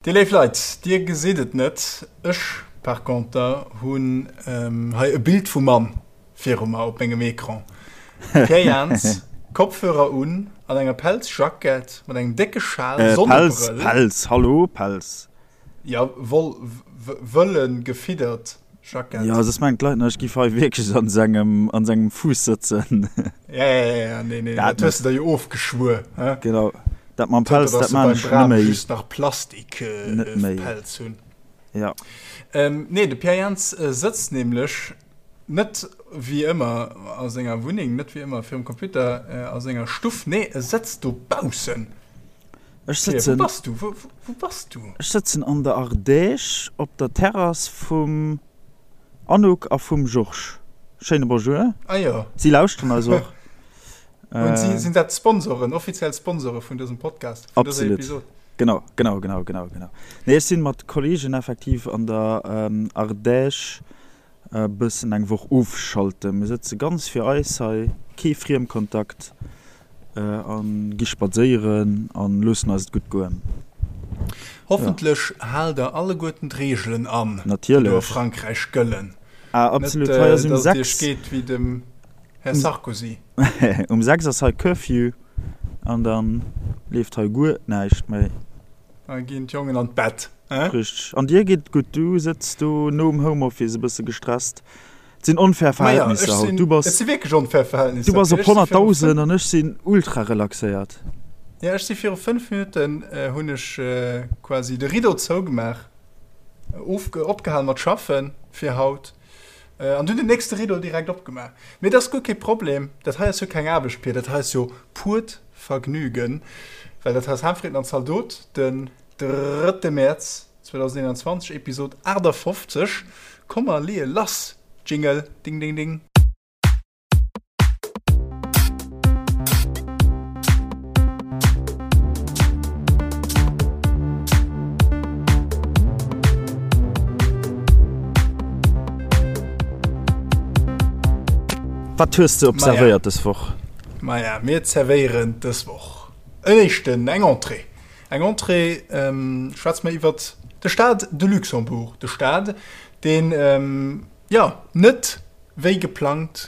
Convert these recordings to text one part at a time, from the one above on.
Dir léif Leit, dir gesitt et net, ech par conter hunn hei e Bild vum Mann viru mer op mengem Ecran. Pierre Jans, Kopfhörer un, an enger Pelzjackett, mat engem décke Schal, Sonnebrëll. Pelz, Pelz, hallo, Pelz. Jo, Woll, wëlle gefiddert Jackett. Jo, soss mengen d'Leit nach, ech giff hei wierklech an sengem, an sengem Fuuss sëtzen. Ja, ja, ja, ja, nee, nee, dat hues de der jo ofgeschwuer, he? Genau. Dat mam Pelz, dat maan ech net méi. Just nach Plastik net méi. Pelz hunn. Ja. Ähm, nee, de Pierre Jans sëtzt nämlech net wéi ëmmer a senger Wunneng, net wéi ëmmer virum Computer a senger Stuff, nee, e sëtzt dobaussen. Ech sëtzen. Wou bass du? Wou, wou bass du? Ech sëtzen an der Ardèche op der Terrass vum Anouk a vum Georges. Schéine Bonjour. Ah jo. Si lauschteren eis och. Und si sinn dat Sponsoren, offiziell Sponsore vun dësem Podcast, vun dëser Episod. Genau, genau, genau, genau, genau. Nee, ech sinn mat Kollegen effektiv an der Ardèche e bëssen eng Woch ofschalten. Mir sëtze ganz fir eis hei, kee Friemkontakt a gi spadséieren a loossen eis et gutt goen. Hoffentlech haalt der alleguerten d'Reegelen an, déi do a Frankräich gëllen. Ah, absolut. Hei ass um 6. Net, datt et iech geet wéi dem Här Sarkozy. Um 6 ass hei Curfew an dann leeft hei guer näischt méi. Da ginn d'Jongen an d'Bett, hein? Richteg. An dir geet et gutt? Du sëtz do nom Homeoffice e bësse gestresst. Et sinn onfair Verhältnisser haut. Du bass. Et si wierklech onfair Verhältnisser. Du bass op 100.000 an ech sinn ultra relaxéiert. Jo, ech si viru 5 Minutten hunn ech quasi de Rideau zougemaach, opgehal mat schaffen fir haut. An dunn den nächste Rideau direkt opgemaach. Mee dat ass guer kee Problem, dat hei ass jo keng Aarbecht, Pir, dat hei ass jo purt Vergnügen, well dat hei ass Haanfritten an Zaldot, den drëtte Mäerz 2021, Episod 58. Komm mer leeë lass, Jingle, ding ding ding. Wat hues de observéiert dës Woch? Maja, mir zerwéieren dës Woch en éischten, eng Entrée. Eng Entrée, schwätze mer iwwert de Stade de Luxembourg, de Stade, deen, jo, net wéi geplangt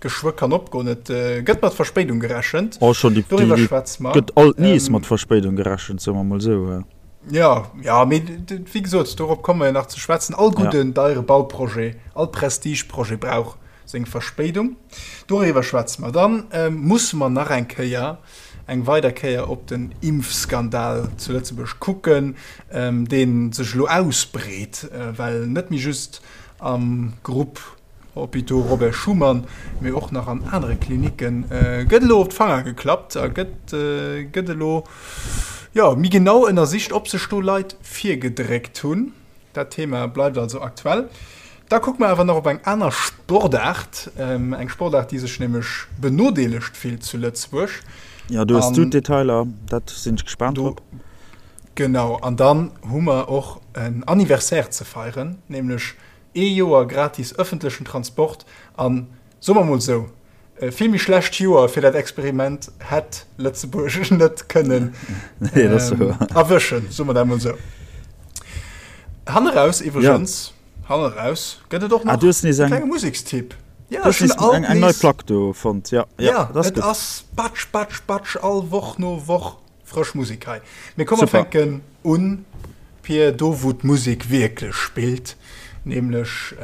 geschwë kann opgoen. Et gëtt mat Verspéidung gerechent. Oh, schon déi, Doriwwer schwätze mer. Gëtt alt nees mat Verspéidung gerechent, soe mer mol esou. Jo, jo, mee wéi gesot, dorop komme mer jo nach ze schwätzen. All gudden, deiere Bauprojet, all Prestigeprojet brauch seng Verspéidung. Doriwwer schwätze mer. Dann musse mer nach eng Kéier, eng weider Kéier op den Impfskandal zu Lëtzebuerg kucken, dee sech elo ausbreet, well net méi just am Grupp Hôpitaux Robert Schuman, mee och nach an anere Klinicke gëtt elo op d'Fanger geklappt a gëtt gëtt elo jo méi genau ënnersicht, ob sech do Leit virgedréckt hunn. Dat Thema bleift also aktuell. Da kucke mer awer nach op eng aner Sportaart, eng Sportaart, déi sech nämlech benodeelegt fillt zu Lëtzebuerg. Jo, do hues du d'Detailer, dat sinn ech gespaant drop. Genau, an dann hu mer och en Anniversaire ze feieren, nämlech ee Joer gratis ëffentlechen Transport. An, soe mer mol esou, e vill méi schlecht Joer fir dat Experiment hätt Lëtzebuerg net kënnen erwëschen, soe mer dat mol esou. Hanneraus iwwregens, hanneraus gëtt et och nach e klenge Musekstipp. Jo, ech hunn alt nees eng nei Plack do fonnt, jo, jo, et ass Batsch, Batsch, Batsch all Woch no Woch. Frësch Musek hei. Mee komm mer fänken un, Pir, do wou d'Musek wierklech spillt, nämlech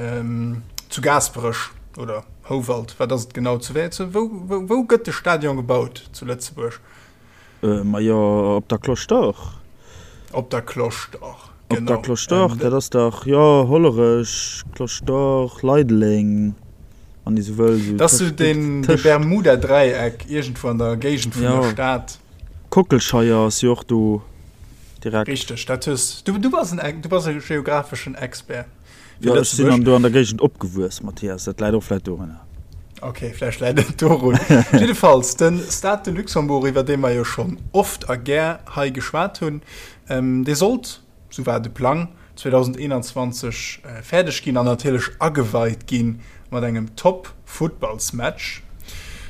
zu Gaasperech oder Houwald, wat ass et genau? Zu wéi, zu wou, wou, wou gëtt de Stadion gebaut zu Lëtzebuerg? Majo op der Cloche d'Or. Op der Cloche d'Or, genau. Op der Cloche d'Or, dat ass dach, jo, Hollerech, Cloche d'Or, Leideleng, wann ee sou wëll, sou Dat ass sou deen, dee Bermuda-Dräieck iergendwou an der Géigend vun der Stad. Kockelscheier ass jo och do direkt. Richteg, dat hues du. Du bass en, du bass e geographeschen Expert fir Jo, ech sinn an do an der Géigend opgewuess, Mathias, dat läit och vläit dorunner. Ok, vläicht läit et dorun. Jiddefalls, de Stade de Luxembourg, iwwer dee mer jo schonn oft a gär hei geschwat hunn, dee sollt sou war de Plang, 2021 fäerdeg ginn an natierlech ageweit gi mat engem Top-Futtballsmatch.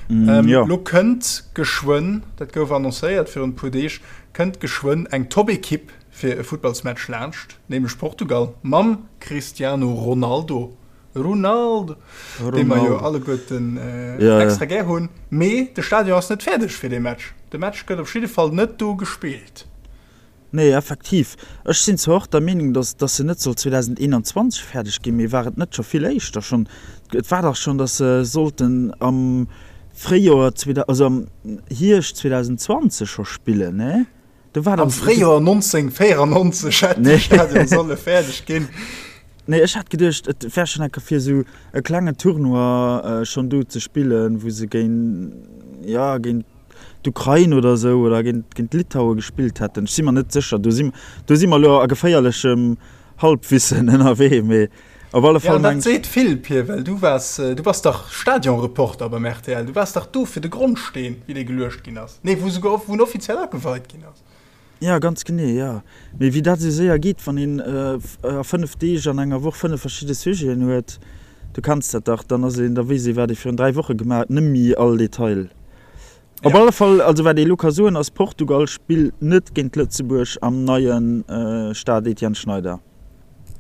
Lo kënnt geschwënn, dat gouf annoncéiert virun e puer Deeg, kënnt geschwënn eng Top-Ekipp. fir e Futtballsmatch laanscht, nämlech Portugal mam Cristiano Ronaldo, Ronaldo, dee mer jo alleguerten extra gär hunn. Mee de Stadion ass net fäerdeg fir dee Match. De Match gëtt op jidde Fall net do gespillt. Nee, effektiv. Ech sinn zwar och der Meenung, dass dass se net soll 2021 fäerdeg ginn, mee war et net scho vill éischter schonn? Et war dach schonn, dass se sollten am Fréijoer, also am Hierscht 2020 scho spillen, nee? Do war Am Fréijoer 1994 hätt de Stadion solle fäerdeg ginn. Nee, ech hat geduecht, et wär schonn eng Kéier fir esou e klengen Tournoi schonn do ze spillen, wou se géint, jo, géint d'Ukrain oder esou oder géint, géint Litaue gespillt hätten. Ech si mer net sécher, do si, do si mer elo a geféierlechem Halbwissen ënnerwee, mee op alle Fall Ja, an dat seet vill, Pir, well du waars, du bass dach Stadionreporter beim rtl, du waars dach do fir de Grondsteen, wéi dee geluecht ginn ass, nee, wou souguer, wou en offiziell ageweit ginn ass. Ja, ganz genee, jo. Mee wéi dat esou séier geet, wann een a 5 Deeg an enger Woch 5 verschidde Sujeten huet, du kenns dat dach, dann ass een, da weess ee wat ee virun 3 Woche gemaach huet, nëmmi all Detail. Op alle Fall, also wat ee elo ka soen ass, Portugal spillt net géint Lëtzebuerg am neie Stade Etienne Schneider.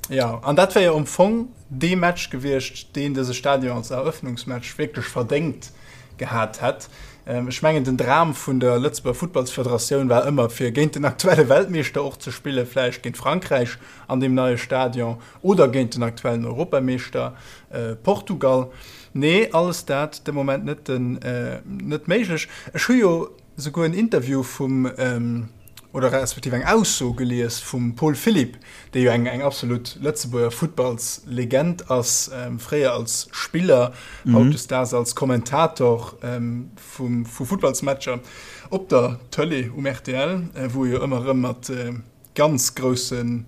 Jo, an dat wär jo am Fong dee Match gewiescht, deen dëse Stadion als Eröffnungsmatch wierklech verdéngt gehat hätt. Ech mengen, den Dram vun der Lëtzebuerger Futtballsfederatioun war ëmmer, fir géint den aktuelle Weltmeeschter och ze spillen, vläicht géint Frankräich an deem neie Stadion oder géint den aktuellen Europameeschter Portugal. Nee, alles dat de Moment net, net méiglech. Ech hu jo souguer en Interview vum, oder respektiv eng Ausso gelies vum Paul Philipp, dee jo eng eng absolut Lëtzebuerger Futtballslegend ass, fréier als Spiller, hautdesdaags als Kommentator vum vu Futtballsmatcher op der Tëlee um rtl, wou e jo ëmmer erëm mat ganz grousse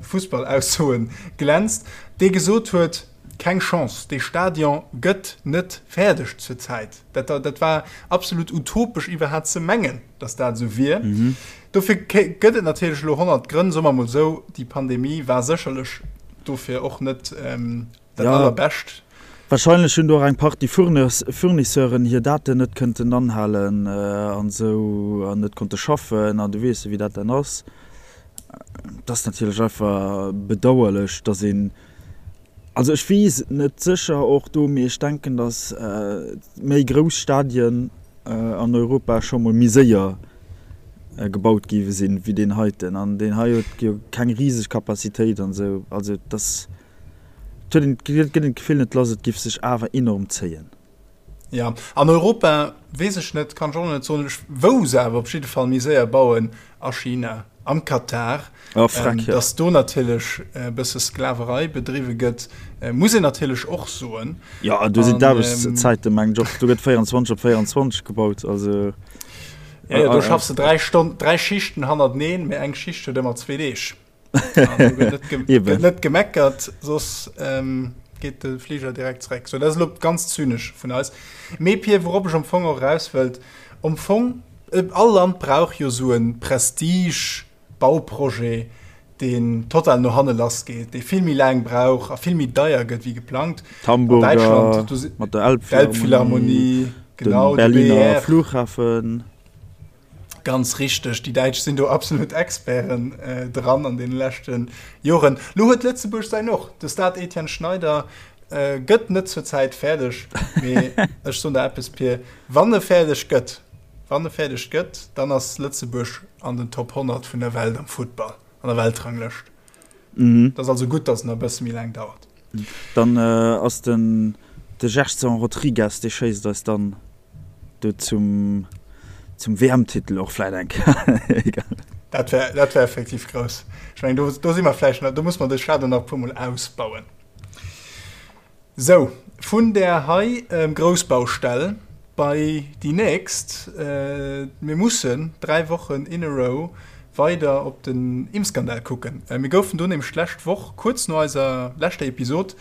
Fussballaussoe glänzt, dee gesot huet, Keng Chance, dee Stadion gëtt net fäerdeg zur Zäit. Dat, dat war absolut utopesch iwwerhat ze mengen, datt dat esou wier. Dofir gëtt et natierlech elo 100 Grënn, soe mer emol esou, déi Pandemie war sécherlech dofir och net Dat ja. allerbescht. Wahrscheinlech hunn do och eng Partie Fournisseuren hir Daten net kënnten anhalen an esou an net konnte schaffen an du weess jo wéi dat dann ass. Et ass natierlech einfach bedauerlech, datt een, also ech weess et net sécher och do, mee ech denken, datt méi grouss Stadien an Europa scho mol méi séier gebaut gi sinn wéi deen heiten an deen hei huet jo keng riseg Capacitéit an esou. Also et ass. Et huet een, et gëtt een d'Gefill net lass, et giff sech awer enorm zéien. Jo, an Europa weess ech net, kann ech och nach net soen, wou se awer op jidde Fall méi séier bauen, a China, am Katar. Oh, freck, jo. Dass do natierlech e bësse Sklaverei bedriwwe gëtt, muss een natierlech och soen. Jo, do sinn d'Aarbechtszäiten, mengen ech och, do gëtt 24 op 24 gebaut, also. Jo, jo, do schaffs de 3 Stonn, 3 Schichten hannerteneen, mee eng Schicht huet ëmmer zwee Deeg. Gëtt net gemeckert, soss ähm, geet de Flieger direkt zréck. So, dat ass lo ganz zynesch vun eis. Mee Pir, wourop ech am Fong och eraus wëllt, am Fong, äh, all Land brauch jo sou e Prestige-Bauprojet, deen total no hanne lass geet, dee vill méi laang brauch a vill méi deier gëtt wéi geplangt. D'Hamburger mat der Elbphilharmonie, genau, de Berliner Flughafen. Ganz richteg, déi Däitsch sinn do absolut Experten dran an deene leschte Joren. Lo huet Lëtzebuerg säin och. De Stade Etienne Schneider gëtt net zur Zäit fäerdeg, mee ech soen der eppes, Pir, wann e fäerdeg gëtt, wann e fäerdeg gëtt, dann ass Lëtzebuerg an den Top 100 vun der Welt am Futtball, an der Weltranglëscht. Et ass also gutt, datt en nach e bësse méi laang dauert. Dann ass den de Gerson Rodrigues, dee schéisst eis dann do zum zum WM-Titel och vläit eng Kéier. Egal. Dat wär, dat wär effektiv grouss. Ech mengen, do, do si mer vläicht nach, do muss mer de Stadion nach e puermol ausbauen. Sou, vun där hei Groussbaustell bei déi nächst. Mir mussen 3 Wochen in a row weider op den Impfskandal kucken. Mir goufen do nämlech d'lescht Woch, kuerz no eiser leschter Episod,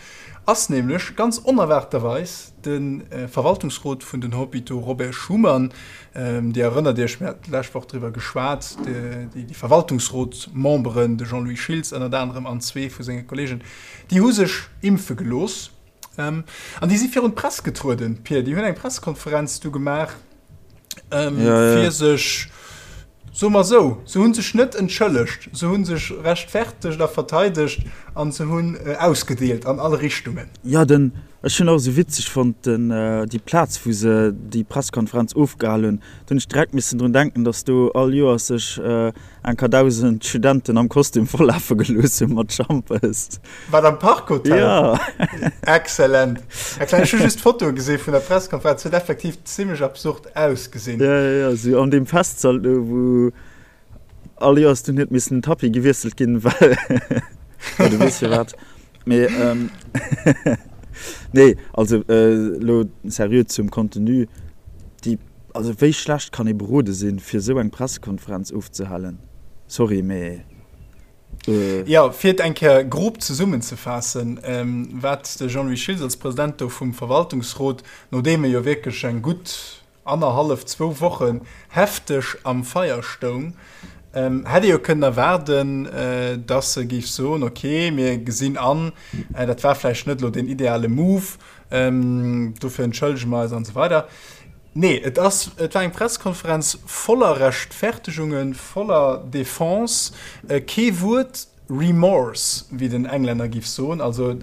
ass nämlech ganz onerwaarterweis de Verwaltungsrot vun den Hôpitaux Robert Schuman, Dir erënnert Iech, mir haten d'lescht Woch driwwer geschwat, déi Verwaltungsrotsmemberen, de Jean-Louis Schiltz ënnert anerem an zwee vu senge Kolleegen, Déi hu sech impfe gelooss an déi si virun d'Press getrueden, Pir. Déi hunn eng Pressekonferenz du gemaach, fir sech. Soe mer esou, se hu sech net entschëllegt, se hu sech rechtfertegt a verteidegt a se hunn ausgedeelt an all Richtungen. Jo, den, ech hunn och esou witzeg fonnt, den, déi Plaz, wou se déi Presskonferenz ofgehal hunn, do hunn ech direkt missen drun denken, datt do all Joers sech enker 1.000 Studenten am Kostüm vollafe gelooss hu mat Schampes. Wat, am Park Hotel? Jo. Excellent, excellent. Ech hu just d'Fotoe gesi vun der Presskonferenz, huet effektiv zimmlech absurd ausgesinn. Jo, jo, jo, sou an deem Festsall do, wou all Joers dunn huet missen den Tapis gewiesselt ginn, well, jo, du weess firwat. Mee, nee, also elo seriö zum Contenu, déi, also wéi schlecht kann ee berode sinn, fir esou eng Pressekonferenz ofzehalen? Sorry, mee. Jo, fir et eng Kéier grob zesummenzefaassen, wat de Jean-Louis Schiltz als President do vum Verwaltungsrot, nodeem e jo wierklech eng gutt annerhallef, zwou Wochen hefteg am Feier stoung, hätt ee jo kënnen erwaarden, datt e géif soen, ok, mir gesinn an, dat war vläicht net elo deen ideale Move, dofir entschëllege mer eis an esou weider. Nee, et ass, et war eng Pressekonferenz voller Rechtfertegungen, voller Defense, kee Wuert Remorse, wéi den Englänner giff soen, also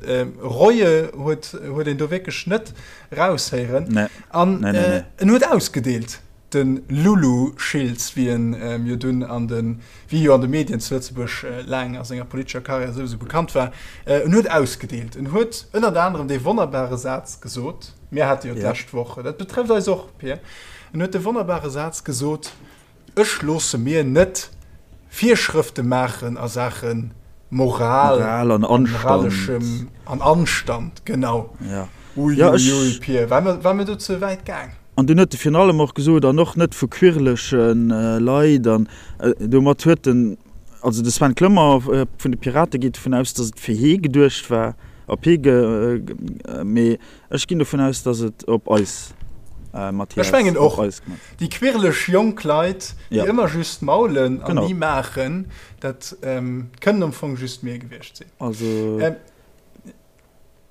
Reue huet, huet een do wierklech net raushéieren. Nee. An Nee, nee, nee. en huet ausgedeelt, de Lulu Schiltz, wéi en jo dunn an de, wéi jo an de Medien zu Lëtzebuerg laang a senger politescher Karriär souwisou bekannt war. En huet ausgedeelt. En huet ënnert anerem dee wonnerbare Saz gesot, Mir hate jo d'lescht Woch, dat betrëfft eis och, Pir, en huet de wonnerbare Saz gesot, Ech loosse mir net Virschrëfte maachen a Saache Moral an moraleschem an Anstand. Genau. Uiuiui, Pir, war mir do ze wäit gaang? An dunn huet e virun allem och gesot, an och net vu quirleche Leit, an domat huet en, also de Sven Clement vun de Pirate geet dovun aus, datt et fir hee geduecht war, op hee ge, mee Ech ginn dovun aus, dass et op eis Mathias, Ech mengen op och. eis gemat. Déi quirlech jonk Leit, déi Ja. ëmmer just maulen an Genau. ni maachen, dat kënnen am Fong just mir gewiescht sinn. Also.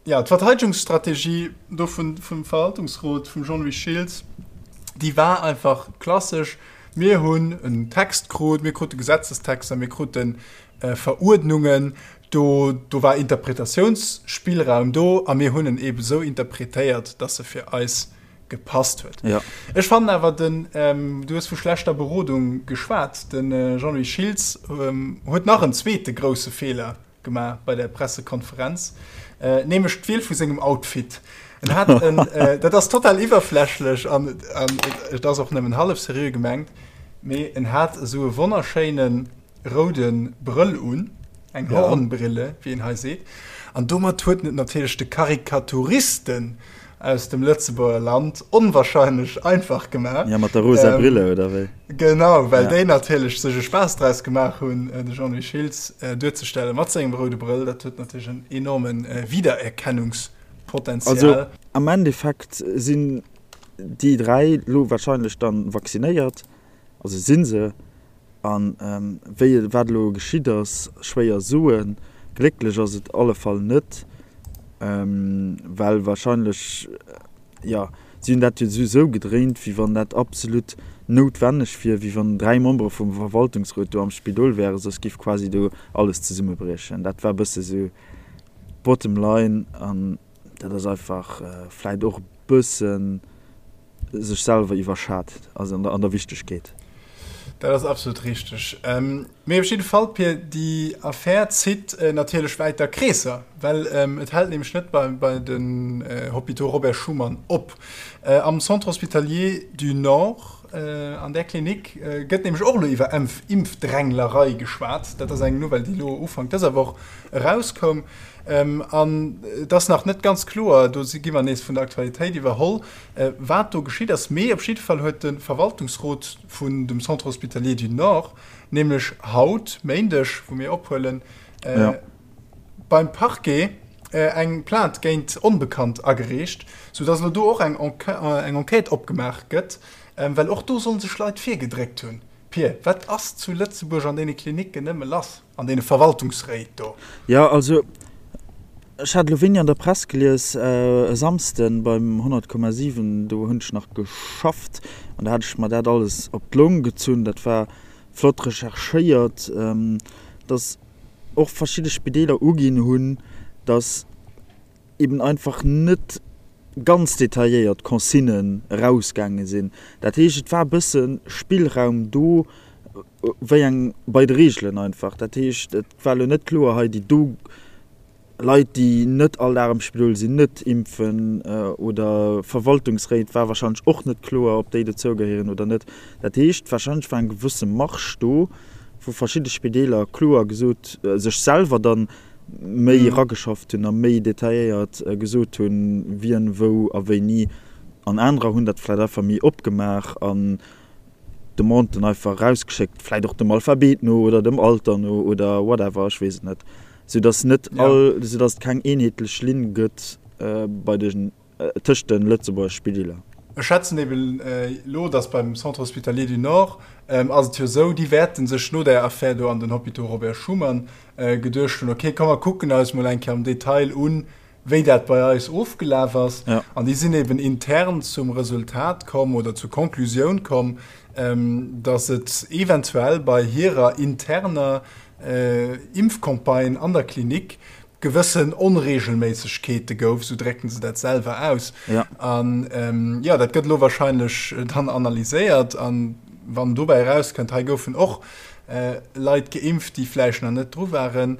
Jo, d'Verteidegungsstrategie do vun, vum Verwaltungsrot, vum Jean-Louis Schiltz, déi war einfach klassesch, Mir hunn en Text krut, mir krute Gesetzestexter, mir krute Veruerdnungen, do, do war Interpretatiounsspillraum do a mir hunn en eebe sou interpretéiert, dass e fir eis gepasst huet. Ja. Ech fannen awer den, du hues vu schlechter Berodung geschwat, de Jean-Louis Schiltz huet nach en zweete grousse Feeler gemaach bei der Pressekonferenz, nämlech d'Wiel vu sengem Outfit. En hat en, dat ass total iwwerflächlech an et ass och nëmmen hallef seriö gemengt, mee en hat esou e wonnerschéinen, roude Brëll un, eng Ja. Hornbrille, wéi een hei seet, an domat huet en et natierlech de Karikaturisten aus dem Lëtzebuerger Land onwahrscheinlech einfach gemaach. Ja, mat der rosa Ähm, Brille, oder wéi? Genau, well Ja. déi natierlech sech e Spaass draus gemaach hunn, de Jean-Louis Schiltz duerzestellen mat sengem roude Brëll. Dat huet natierlech en enorme Wiedererkennungspotenzial. Also am Endeffekt sinn déi 3 lo wahrscheinlech dann vaccinéiert, also sinn se, An wéi wat elo geschitt ass, schwéier soen. Glécklech ass et alle Fall net, well wahrscheinlech, jo, si hunn dat jo esou gedréint, wéi wann dat absolut noutwenneg wier, wéi wann 3 Membere vum Verwaltungsrot do am Spidol wären, soss géif quasi do alles zesummebriechen. Dat war e bësse sou d'Bottom line an dat ass einfach vläit och e bëssen, sech selwer iwwerschat, also an der Wichtegkeet. Dat ass absolut richteg. Mee op jidde Fall, Pir, déi Affär zitt natierlech wäiter Kreesser, well et hält nämlech net bei den Hôpitaux Robert Schuman op. Am Centre hospitalier du Nord, an där Klinik, gëtt nämlech och elo iwwer Impfdränglerei geschwat. Dat ass eng Nouvelle, déi elo Ufank dëser Woch erauskoum. An et ass nach net ganz kloer, do gi mer nees vun der Aktualitéit iwwerholl, wat do geschitt ass. Mee op jidde Fall huet de Verwaltungsrot vun dem Centre hospitalier du Nord nämlech haut, Méindeg, wou mir ophuelen, beim Parquet eng Plainte géint Onbekannt agereecht, soudass elo do och eng Enquête opgemaach gëtt, well och do solle sech Leit virgedréckt hunn. Pir, wat ass zu Lëtzebuerg an deene Klinicken nëmme lass? An deene Verwaltungsréit do. Jo, also ech hat elo wéini an der Press gelies, e Samsden beim 100,7, do hunn ech nach geschafft an do hat ech mer dat alles op d'Long gezunn. Dat war. flott recherchéiert, dass och verschidde Spideeler uginn hunn, dass eben einfach net ganz detailléiert Consignen erausgaange sinn. Dat heescht, et war e bësse Spillraum do, wéi eng bei de Reegelen einfach. Dat heescht, et war elo net kloer, hei déi do Leit, déi net all Dag am Spidol sinn, net impfen oder Verwaltungsréit war warscheinlech och net kloer, ob déi dozou gehéieren oder net. Dat heescht, warscheinlech war eng gewësse Marge do, wou verschidde Spideeler kloer gesot, sech selwer dann méi erageschafft hunn a méi detailléiert gesot hunn, wien wou a wéini. An anerer hunn dat vläicht einfach méi opgemaach an Demanden einfach erausgeschéckt, vläicht och dem Alphabet no oder dem Alter no oder whatever, ech weess et net, soudass net all, soudass et keng eenheetlech Linn gëtt bei den, tëscht de Lëtzebuerger Spideeler. Ech schätzen eben elo, dass beim Centre hospitalier du Nord ass et jo esou, déi wäerte sech no där Affär do an den Hôpitaux Robert Schuman geduecht hunn, okay, komm mer kucken eis mol eng Kéier am Detail un, wéi dat bei eis ofgelaf ass. Ja. An déi sinn eben intern zum Resultat komm oder zur Konklusioun komm, ähm, dass et eventuell bei hirer interner äh, Impfcampagne an der Klinik gewëssen Onregelméissegkeete gouf, sou drécken se dat selwer aus. Ja. An ähm, ja, dat gëtt elo wahrscheinlech dann analyséiert an wann dobäi erauskënnt, hei goufen och äh, Leit geimpft, déi vläicht nach net dru waren,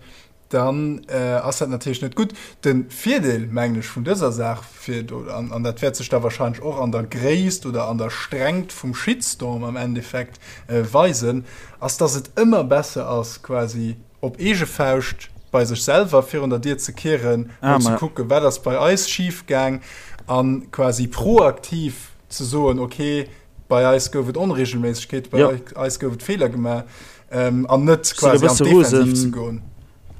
dann ass dat natierlech net gutt. De Virdeel, mengen ech, vun dëser Saach, fir do, an, an dat wäert sech da wahrscheinlech och an der Gréisst oder an der Strengt vum Shitstorm am Endeffekt weisen, ass, dass et ëmmer besser ass, quasi op eege Fauscht bei sech selwer virun der Dier ze kieren, mol ze kucken, wat ass bei eis schifgaang, a quasi proaktiv ze soen, okay, bei eis gouf et Onregelméissegkeeten, bei eis gouf et Feeler gemaach. Ähm, an net quasi an d'Defensiv ze goen.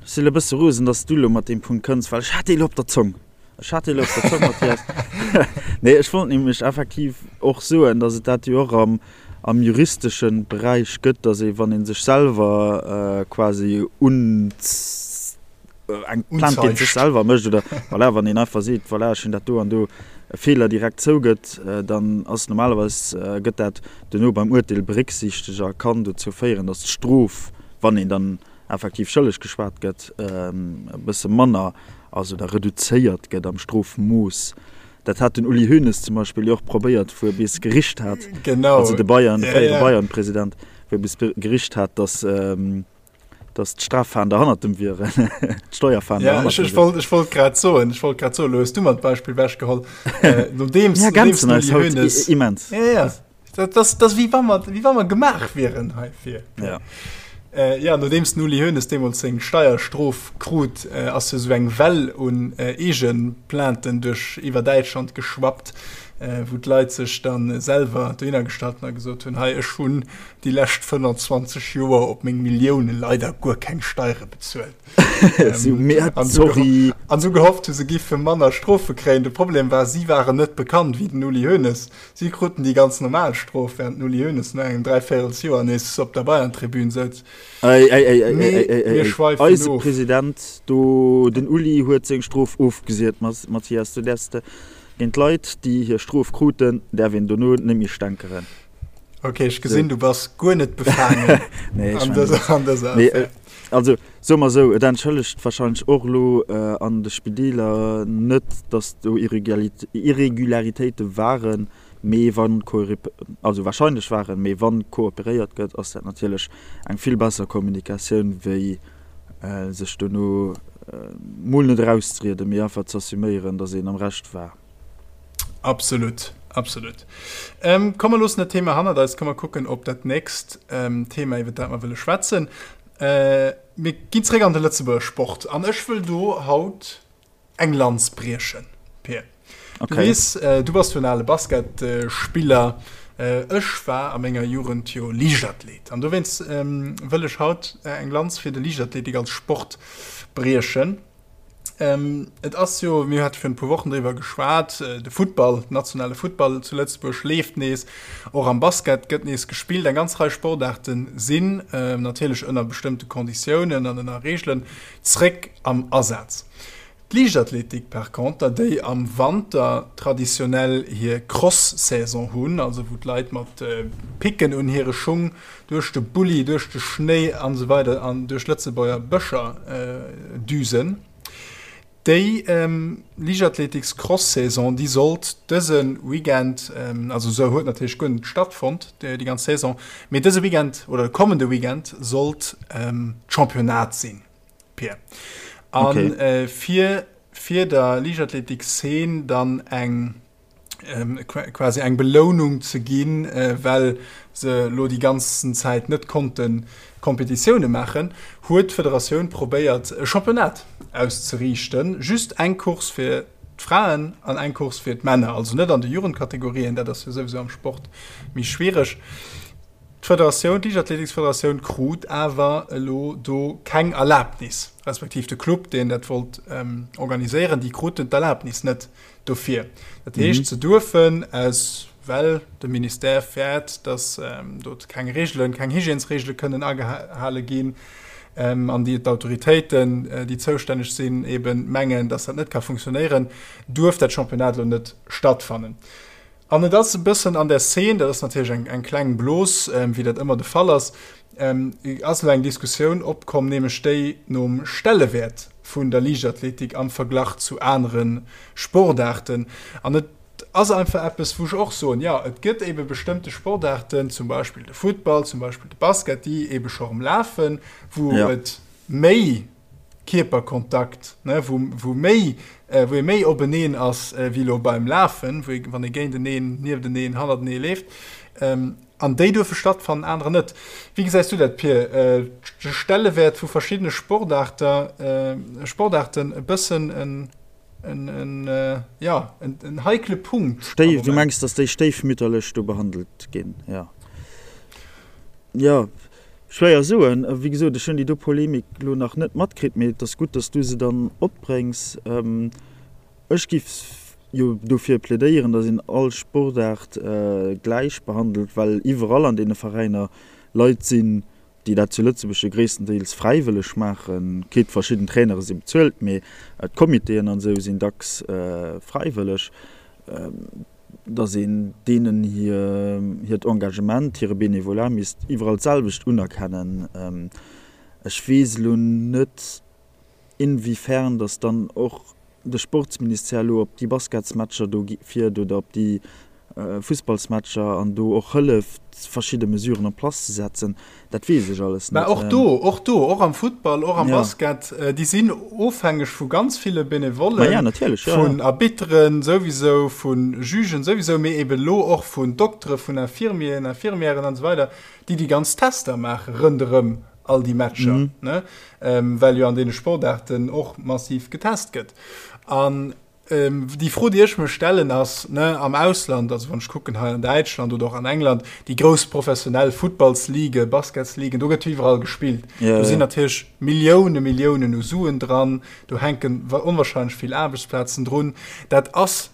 Ech sinn e bësse rosen, dass du elo mat deem Punkt kënns, well ech hat dee lo op der Zong. Ech hat dee lo op der Zong, Mathias. Nee, ech wollt nämlech effektiv och soen, dass et dat jo och am, am juristesche Beräich gëtt, dass ee, wann ee sech selwer quasi un. eng Plainte géint sech selwer mécht oder voilà, wann een einfach seet, voilà, ech hunn dat do an do e Feeler direkt zougëtt, dann ass normalerweis gëtt dat duerno beim Urteel berécksiichtegt a kann dozou féieren, datt d'Strof, wann een dann effektiv schëlleg geschwat gëtt, e bësse manner ass oder reduzéiert gëtt am Strofmooss. Dat hat den Uli Hoeneß zum Beispill jo och probéiert, wou e bis gericht hat, also de Bayern, de fréiere Bayern-President, wou e bis gericht hat, datt, dass d'Straffahnder hannert dem wieren, d'Steuerfahnder ja, hannert dem wieren. Ech wollt grad soen, ech wollt grad soen, lo hues du mer d'Beispill wechgeholl. Äh, nodeems, ja, nodeems den Uli Hoeneß, immens. Ja, ja. Dat, das, das wéi wa mer, wéi wa mer gemaach wieren heifir. Ja. Äh, ja, nodeems den Uli Hoeneß deemools seng Steierstrof krut, äh, ass jo sou eng Well un äh, Eegeplainten duerch iwwer Däitschland geschwappt, äh, wou d'Leit sech dann selwer dohinner gestallt hunn a gesot hunn, hei ech hunn déi lescht 25 Joer op meng Millioune leider guer keng Steiere bezuelt. Sorry. An sou gehofft hu se giffe manner Strofe kréien. De Problem war, si waren net bekannt wéi den Uli Hoeneß. Si kruten déi ganz normal Strof, während den Uli Hoeneß no engem Dräivéierelsjoer nees op der Bayern-Tribün souz. Ei, ei, ei, ei, ei, ei, ei, ei. Eise President do, den Uli huet seng Strof ofgesiet, Mathias. Du däerfs géint Leit, déi hir Strof kruten, däerf een dono net méi stänkeren. Ok, ech gesinn, du bass guer net befaangen nee, an dëser, an dëser nee, äh, Also soe mer esou, et entschëllegt wahrscheinlech och elo äh, an de Spideeler net, datt do Irregularitéite waren, mee wann also wahrscheinlech waren, mee wann kooperéiert gëtt, ass dat natierlech eng vill besser Kommunikatioun wéi äh, sech dono äh, mol net erauszerieden, mee einfach ze assuméieren, datt een am Recht war. Absolut, absolut. Ähm, komm, mer loossen dat Thema hannert eis. Komm, mer kucken op dat nächst ähm, Thema, iwwer dat mer wëlle schwätzen. Äh, mir ginn zréck an de Lëtzebuerger Sport an ech wëll do haut eng Lanz briechen, Pir. Okay. Du weess, äh, du bass jo en ale Basketspiller. Äh, ech war a menger Jugend jo Liichtathlet. An dowéinst ähm, wëll ech haut äh, eng Lanz fir de Liichtathletik als Sport briechen. Ähm, et ass jo, mir hate virun e puer Wochen driwwer geschwat, äh, de Futtball, den nationale Futtball zu Lëtzebuerg leeft nees, och am Basket gëtt nees gespillt. Eng ganz Rei Sportaarte sinn, äh, natierlech ënner bestëmmte Konditiounen an ënner Reegelen, zréck am Asaz. D'Liichtathletik par conter, déi am Wanter traditionell hir Cross-Saison hunn, also wou d'Leit mat Picken un hire Schung duerch de Bulli, duerch de Schnéi an esou weider an duerch Lëtzebuerger Bëscher düsen, déi Liichtathletiks-Cross-Saison, déi sollt dëse Weekend, also se huet natierlech guer net stattfonnt, déi ganz Saison, mee dëse Weekend oder de kommende Weekend sollt d'Championnat sinn. Pir. An okay. äh, fir, fir der Liichtathletik-Szene dann eng ähm, quasi eng Belounung ze ginn, äh, well se lo déi ganzen Zäit net konnten Kompetitioune maachen, huet d'Federatioun probéiert e Championnat auszeriichten, just eng Course fir d'Fraen an eng Course fir d'Männer, also net an de Jugendkategorien, dat ass jo souwisou am Sport méi schwiereg. D'Federatioun, d'Liichtathletiksfederatioun krut awer elo do keng Erlabnis, respektiv de Club, deen dat wollt organiséieren, déi kruten d'Erlabnis net dofir. Dat heescht, se duerfen aus, well de Ministère fäert, datt do keng Reegelen, keng Hygiènesreegele kënnen agehale ginn an déi d'Autoritéiten, déi zoustänneg sinn, eeben mengen, datt dat net ka funktionéieren, duerf dat Championnat elo net stattfannen. An et ass e bëssen an der Szene, dat ass natierlech eng, eng kleng Blos, wéi dat ëmmer de Fall ass, ass elo eng Diskussioun opkomm, nämlech déi nom Stellewäert vun der Liichtathletik am Verglach zu anere Sportaarten. An et ass einfach eppes, wou ech och soen, jo, et gëtt ebe bestëmmte Sportaarten, zum Beispill de Futtball, zum Beispill de Basket, déi ebe scho erëm lafen, wou et méi Kierperkontakt, ne, wou, wou méi, wou ee méi openeen ass wéi elo beim Lafen, wou ee, wann ee géinteneen, niefteneen, hannertenee leeft. An déi duerfe stattfannen, anerer net. Wéi gesäis du dat, Pir? De Stellewäert vu verschiddene Sportaarter, Sportaarten e bëssen en, en, en, jo, en, en heikle Punkt am Stéif, du Moment. mengs, datt déi stéifmütterlech do behandelt ginn, jo. Jo. Schwéier soen. Wéi gesot, ech hunn déi do Polemik elo nach net matkritt, mee et ass gutt, datt s du se dann opbréngs. Ech giff jo dofir plädéieren, datt een all Sportaart gläich behandelt, well iwwerall an deene Veräiner Leit sinn, déi dat zu Lëtzebuerg jo gréisstendeels fräiwëlleg maachen. Quitte verschidden Trainere si bezuelt, mee d'Comitéen an esou sinn dacks fräiwëlleg. Datt een deenen hiert Engagement, hire Bénévolat misst iwwerall d'selwecht unerkennen. Ech weess elo net, inwiefern datt dann och de Sportsministère elo op déi Basketsmatcher do fiert oder op déi Fussballsmatcher an do och hëlleft, verschidde Mesuren en place ze setzen. Dat weess ech alles net. Mä och do, och do, och am Futtball, och am Basket, déi sinn ofhängeg vu ganz ville Benevollen, vun Arbitteren souwisou, vu Jugen souwisou, mee eben elo och vun Doktere, vun Infirmieren, Infirmièren an esou weider, déi déi ganz Tester maache rënderëm all déi Matcher, ne, well jo an deene Sportaarten och massiv getest gëtt. An Déi Fro, déi ech mech stellen, ass, ne, am Ausland, also wann ech kucken hei an Däitschland oder och an England, déi grouss professionell Futtballsligen, Basketsligen, do gëtt jo iwwerall gespillt. Do sinn natierlech Millioune, Milliounen u Suen dran, do hänken onwahrscheinlech vill Aarbechtsplazen drun. Dat ass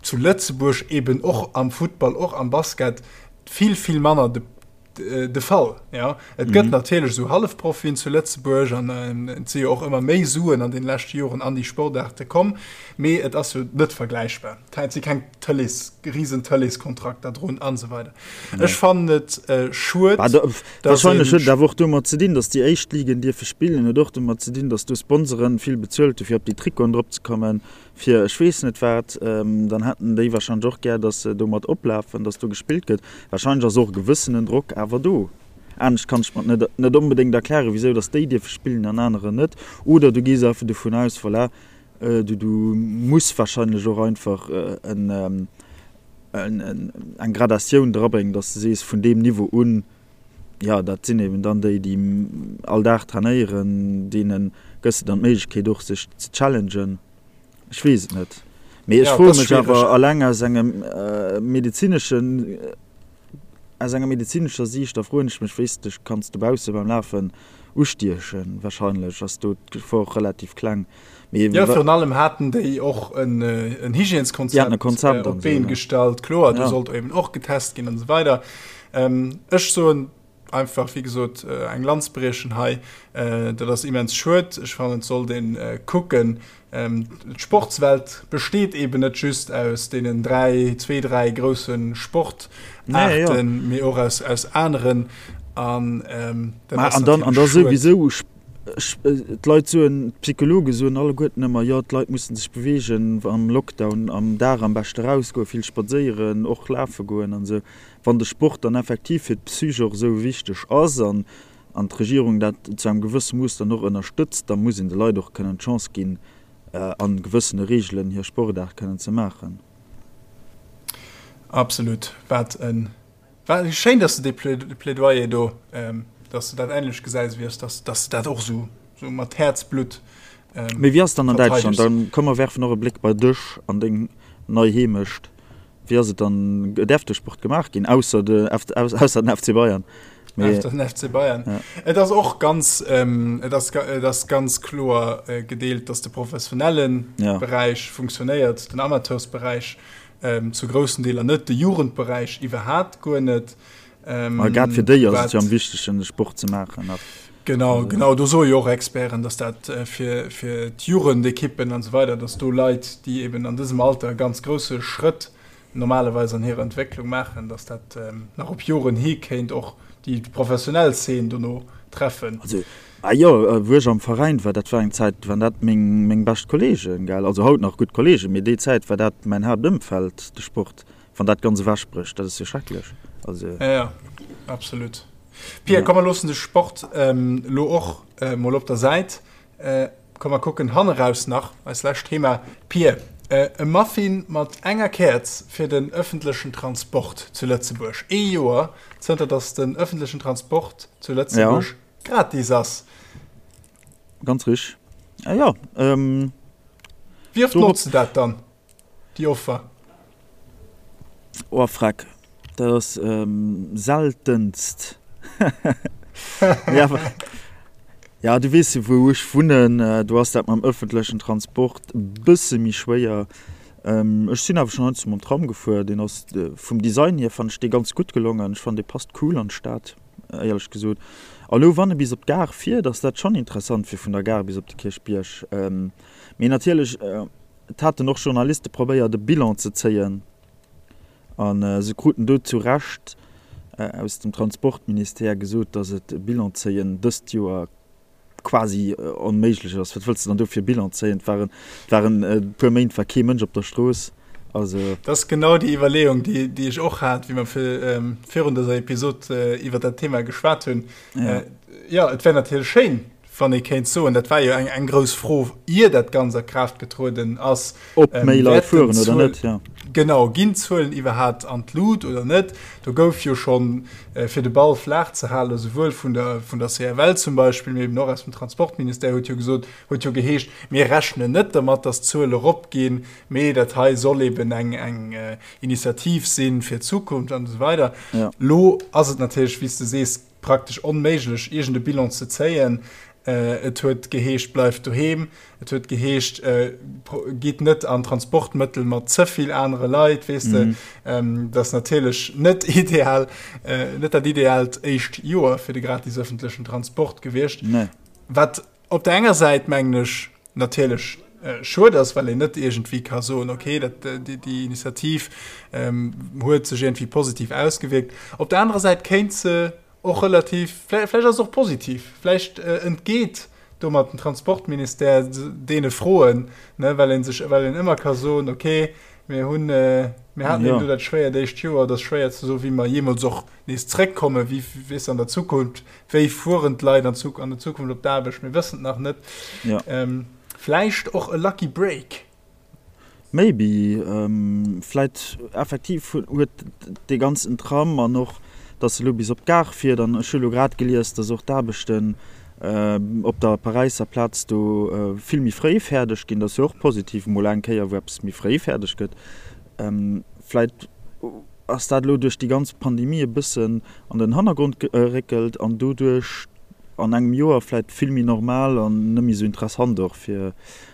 zu Lëtzebuerg eben och am Futtball, och am Basket vill, vill manner de de Fall. Ja. Et gëtt mm -hmm. natierlech sou Hallefprofien zu Lëtzebuerg an äh, et si jo och ëmmer méi Suen an den leschte Joren an déi Sportaarte komm, mee et ass jo net vergläichbar. Et si keng Tëlees, riesen Tëleeskontrakter drun an esou weider. Nee. Ech fannen et äh, schued. Ah, da, wahrscheinlech huet et awer och domat ze dinn, datt déi éischt Ligen dierfe spillen, huet och domat ze dinn, datt do Sponsoren vill bezuelt hu fir op déi Trikoten drop ze kommen. Fir ech weess net wat, dann hätten déi wahrscheinlech och gär, dass se domat oplafen, dass do gespillt gëtt. Wahrscheinlech ass och e gewëssenen Drock awer do. Anescht kann ech mer et net net onbedéngt erklären, wisou dass déi dierfe spillen an anerer net. Oder du gees einfach dovun aus, voilà, du du muss wahrscheinlech och einfach en eng Gradatioun drabréngen, dass de sees, vun deem Niveau un, jo, dat sinn eben dann déi, déi all Dag trainéieren, deene gëss de dann d'Méiglechkeet och sech ze challengen. Ech weess et net. Mee ech froe mech awer alleng aus engem medezineschen, aus enger medezinescher Siicht, da froen ech mech, wéi s de dech kanns dobausse beim Lafen ustiechen. Wahrscheinlech ass do d'Gefor relativ kleng. Mee jo, virun allem haten déi och en Hygièneskonzept op d'Been gestallt. Kloer, do sollt eben och getest ginn an esou weider. Ech soen. einfach, wéi gesot, eng Lanz briechen hei. Dat ass immens schued. Ech fannen, et sollt ee kucken, D'Sportswelt besteet eben net just aus deenen 3, zwee, 3 grousse Sportaarten, mee och aus, aus aneren. An dat ass an dann, an da souwisou, d'Leit soen, d'Psychologe soen alleguerten ëmmer, jo d'Leit mussen sech beweegen am Lockdown, am Dag am beschte rausgoen, vill spadséieren, och lafe goen an esou. Wann de Sport dann effektiv fir d'Psych och esou wichteg ass an an d'Regierung dat zu engem gewësse Mooss dann och ënnerstëtzt, da muss een de Leit och kënnen d'Chance ginn, a gewëssene Reegelen hir Sportaart kënnen ze maachen. Absolut. Wat e, wat schéin, dass de dee Plädoyer do, dass de dat änlech gesäis wéi ech, dass, dass de dat och esou, esou mat Häerzblutt verteidegs. Mee wéi ass et dann an Däitschland? Dann komm mer werfen och e Bléck bei dech an deng nei Heemecht. Wéi ass et dann, däerf de Sport gemaach ginn, ausser de, ausser den FC Bayern? Mee, Ausser den FC Bayern. Ja. Et ass och ganz, ähm, et ass, et ass ganz kloer äh, gedeelt, dass de professionellen ja. Beräich funktionéiert, den Amateursberäich ähm, zu groussen Deeler net, de Jugendberäich iwwerhaapt guer net. Ähm, grad fir déi ass et jo am wichtegsten, de Sport ze maachen. Genau, genau, do soe jo och Experten, dass dat äh, fir, fir d'Jugendekippen an esou weider, dass do Leit, déi eben an dësem Alter e ganz grousse Schrëtt normalerweis an hirer Entwécklung maachen, dass dat ähm, nach op Joren hi kéint och déi professionell Zeen dono treffen. Also, ah jo, äh, wou ech am Veräin war, dat war eng Zäit, waren dat meng, meng bescht Kollegen, gell, also haut nach gutt Kollegen, mee déi Zäit war dat mäin Haaptëmfeld, de Sport. Wann dat ganz ewech brécht, dat ass jo schrecklech. Also. Ja, ja, absolut. Pia, ja. komm, mer loossen de Sport ähm, lo och äh, mol op der Säit. Äh, komm, mer kucken hanneraus nach, eis lescht Thema. Pia, äh, e Muffin mat enger Käerz fir den ëffentlechen Transport zu Lëtzebuerg. Ee Joer zënter dass den ëffentlechen Transport zu Lëtzebuerg ja. gratis ass. Ganz rich. Ah, ja, ähm, Wie oft notzt du dat dann? Déi Offer. Oh freck, dat ass seltenst. Mee awer, ja du weess jo wou ech wunnen, do ass dat mam ëffentlechen Transport e bësse méi schwéier. Ech sinn awer schonn heiansdo mam Tram gefuer, deen ass vum Design hier fannen ech dee ganz gutt gelongen. Ech fannen dee passt cool an d'Stad éierlech gesot. A lo wann e bis op d'Gare fiert ass dat schonn interessant fir vun der Gare bis op de Kierchbierg. Mee natierlech. Et haten och Journaliste probéiert e Bilan ze zéien a se kruten do zu Recht aus dem Transportministère gesot, datt et e Bilan zéien dëst Joer quasi onméiglech ass. Wat wëlls de dann do fir e Bilan zéien? Et waren, et waren e puer Méint war kee Mënsch op der Strooss. Also. Dat ass genau déi Iwwerleeung, déi, déi ech och hat, wéi mer virun dëser Episod iwwer dat Thema geschwat hunn. Jo, et wär natierlech schéin, Wann ee kéint soen, dat war jo eng, eng grouss Fro, ier dat Ganzt a Kraaft getrueden ass. Ob méi Leit fueren oder net, jo. Genau, ginn d'Zuelen iwwerhaapt an d'Lut oder net? Do gouf jo schonn, fir de Ball flaach ze halen, esouwuel vun der, vun der CFL zum Beispill, mee eben och aus dem Transportministère huet jo gesot, huet jo geheescht, mir rechnen net dermat, datt d'Zuele eropginn, mee dat hei soll eben eng, eng Initiativ sinn fir d'Zukunft an esou weider. Elo ass et natierlech, wéi s de sees, praktesch onméiglech, iergend e Bilan ze zéien. Et huet geheescht, bleift doheem. Et huet geheescht, gitt net an Transportmëttel mat ze vill anere Leit, weess de. Dat ass natierlech net ideal, net dat ideaalt éischt Joer fir de gratis ëffentlechen Transport gewiescht. Wat op der enger Säit, mengen ech, natierlech schued ass, well een net iergendwéi ka soen, okay, dat, déi, déi Initiativ ähm, huet sech iergendwéi positiv ausgewierkt. Op der anerer Säit kéint se och relativ, vläicht, vläicht ass se och positiv, vläicht äh, entgeet domat den Transportministère deene Froen, ne, well een sech, well een ëmmer ka soen, okay, mir hunn, äh, mir haten eben do dat schwéiert éischt Joer, et ass schwéier ze soen, wéi mer jeemools och nees zréckkommen, wéi, weess an der Zukunft, Wéi fueren d'Leit an an der Zukunft op d'Aarbecht? Mir wëssen et nach net. Ja. Ähm, vläicht och e Lucky Break. Maybe. Ähm, vläit effektiv huet dee ganzen Tram an och, datt e lo bis op d'Gare fiert an ech hu lo grad gelies, datt och d'Aarbechten op der Paräisser Plaz do vill méi fréi fäerdeg ginn. Dat ass jo och positiv, mol eng Kéier wou eppes méi fréi fäerdeg gëtt. Vläit ass dat elo duerch déi ganz Pandemie e bëssen an den Hannergrond geréckelt an doduerch an engem Joer vläit vill méi normal an net méi esou interessant och fir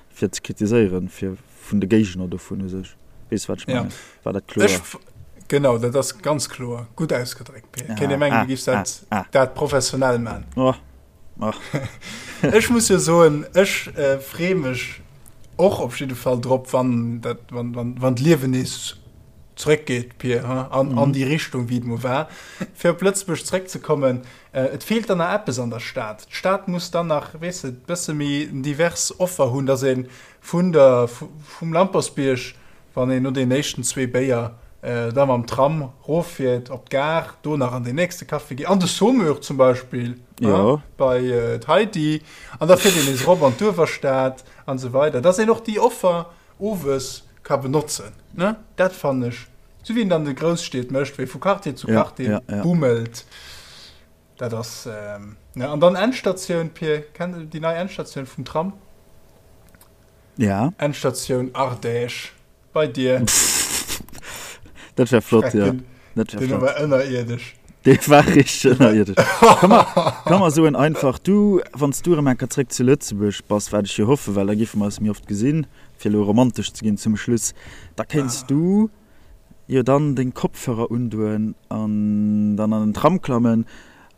fir ze kritiséieren, fir vun de Géigner dovun u sech. Weess wat ech mengen? War dat kloer? Genau, dat ass ganz kloer. Gutt ausgedréckt, Pir. Kéint ee mengen, du giffs dat, dat professionell man. Oh. Oh. Ech muss jo soen, ech freeë mech och op jidde Fall drop, wann dat, wann, wann, wann d'Liewen nees zréckgeet, Pir, ha, an, an déi Richtung, wéi et mol war. Fir op Lëtzebuerg zréckzekommen, et feelt dann nach eppes an der Stad. D'Stad muss dann nach, weess de, bësse méi en divers Offer hunn, dass ee vun der, vum Lampersbierg Wann een no den éischten zwee Béier da mam Tram roffiert op d'Gare, do nach an den nächste Café geet, an de Saumur zum Beispill, ja. bei d'Heidi, an da fiert een nees erop an d'Uewerstad an esou weider, dass een och déi Offer owes ka benotzen, ne? Dat fannen ech, esou wéi een et an de Grousstied mécht, wéi vu Quartier zu Quartier bummelt, dat ass, ne? An dann Endstatioun, Pir, kenns de déi nei Endstatioun vum Tram? Ja. Endstatioun Ardèche bei dir. Dat wär flott, ja. Dat wär flott. war ënnerierdesch. Dee war richteg ënnerierdesch. Ka mer, ka mer soen einfach, du, wann s du erëm eng Kéier zréck zu Lëtzebuerg bass, wat ech jo hoffen, well da géife mer eis méi oft gesinn, fir elo romantesch ze ginn zum Schluss, da kéints du jo dann deng Kopfhörer undoen an dann an den Tram klammen.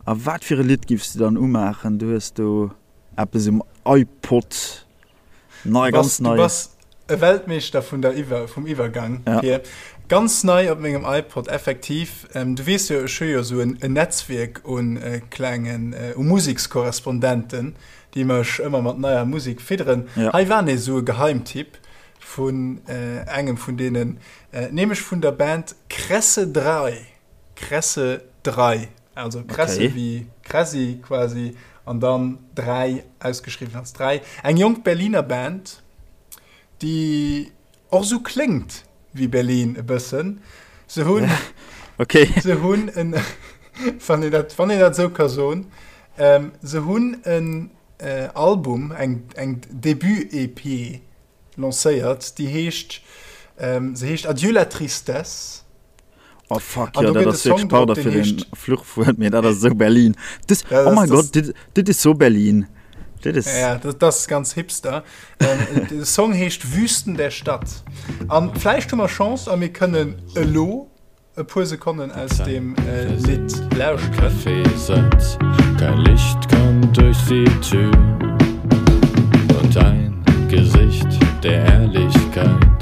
A wat fir e Lidd giffs du dann umaachen? Du hues do eppes um iPod. Nei, ganz nei. Du bass e Weltmeeschter vun der Iwwer, vum Iwwergang, ja. Pir. Ganz nei op mengem iPod, effektiv. Ähm, du weess jo, ech hu jo esou en, en Netzwierk un äh, klengen, äh, u Musekskorrespondenten, déi mech ëmmer mat neier Musek fidderen. Ja. Hei war nees esou e Geheimtipp vun äh, engem vun deenen, äh, nämlech vun der Band Kresse 3. Kresse 3. Also Kresse okay. wéi Kressi quasi an dann 3 ausgeschriwwen als 3. Eng jonk Berliner Band, déi och sou kléngt wéi Berlin e bëssen. Se hunn okay. se hunn en wann een dat, wann een dat sou ka soen, ähm, se hunn en äh, Album, eng, eng Debut-EP lancéiert, déi heescht, ähm, se heescht Adieu la tristesse. Oh fuck, jo, dat ass wierklech, pardon fir den Fluchwuert, mee dat ass esou Berlin. Das, oh mein Gott, dit, dit is so Berlin. Dit is... Ja, dat, dat ass ganz hipster. Ähm, de Song heescht Wüsten der Stadt. An vläicht hu mer Chance a mir kënnen elo e puer Sekonnen aus dem äh, Lidd lauschteren. Café-Satz, kein Licht kommt durch die Tür und ein Gesicht der Ehrlichkeit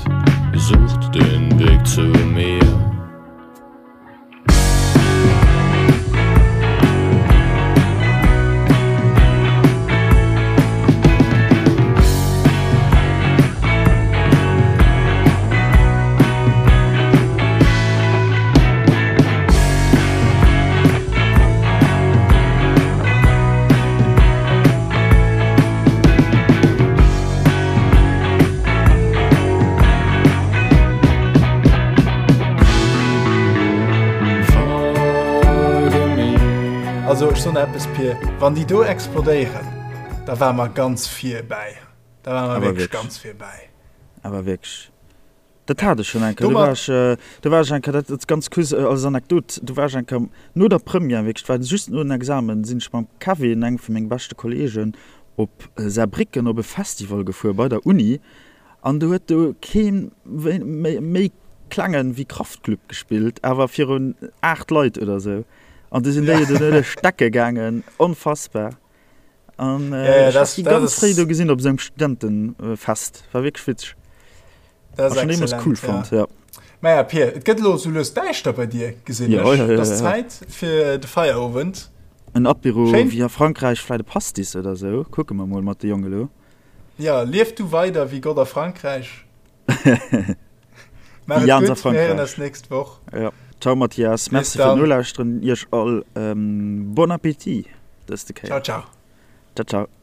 sucht den Weg zu mir. Also ech soen der eppes Pir, wann déi do explodéieren, da ware mer ganz vir bäi. Da ware mer wierklech ganz vir bäi. Awer wierklech. Dat hat ech schonn eng Kéier. Do war ech, do war ech eng Kéier, dat ass ganz kuerz als Anekdot, do war ech eng Kéier no der Première, wierklech, et war just no den Examen, sinn ech mam Kevin, engem vu menge beschte Kolleegen, op Saarbrécken op e Festival gefuer bei der Uni an do huet do kee méi klengen wéi Kraftklub gespillt, awer virun 8 Leit oder sou an du sinn déi jo do duerch d'Decke gaangen, onfassbar. An ech hat déi ganz fréi do gesinn op esou engem Studentenfest, war wierklech witzeg. Dat ass excellent, cool fand, ja. Maja Pir, et gëtt elo sou lues däischter bei dir, gesinn ech. Ja, ja, ja, Et ass Zäit fir de Feierowend. En Apéro wéi a Frankräich, vläit e Pastis oder sou. Kucke mer mol mat de Jonge lo. Ja, lief du weider wéi Gott a Frankräich. Maach et gutt, mir héieren eis nächst Woch. Ja. Ciao Mathias, merci fir d'Nolauschteren, iech all bon appétit dëste Kéier. Ciao, ciao. Ciao, ciao.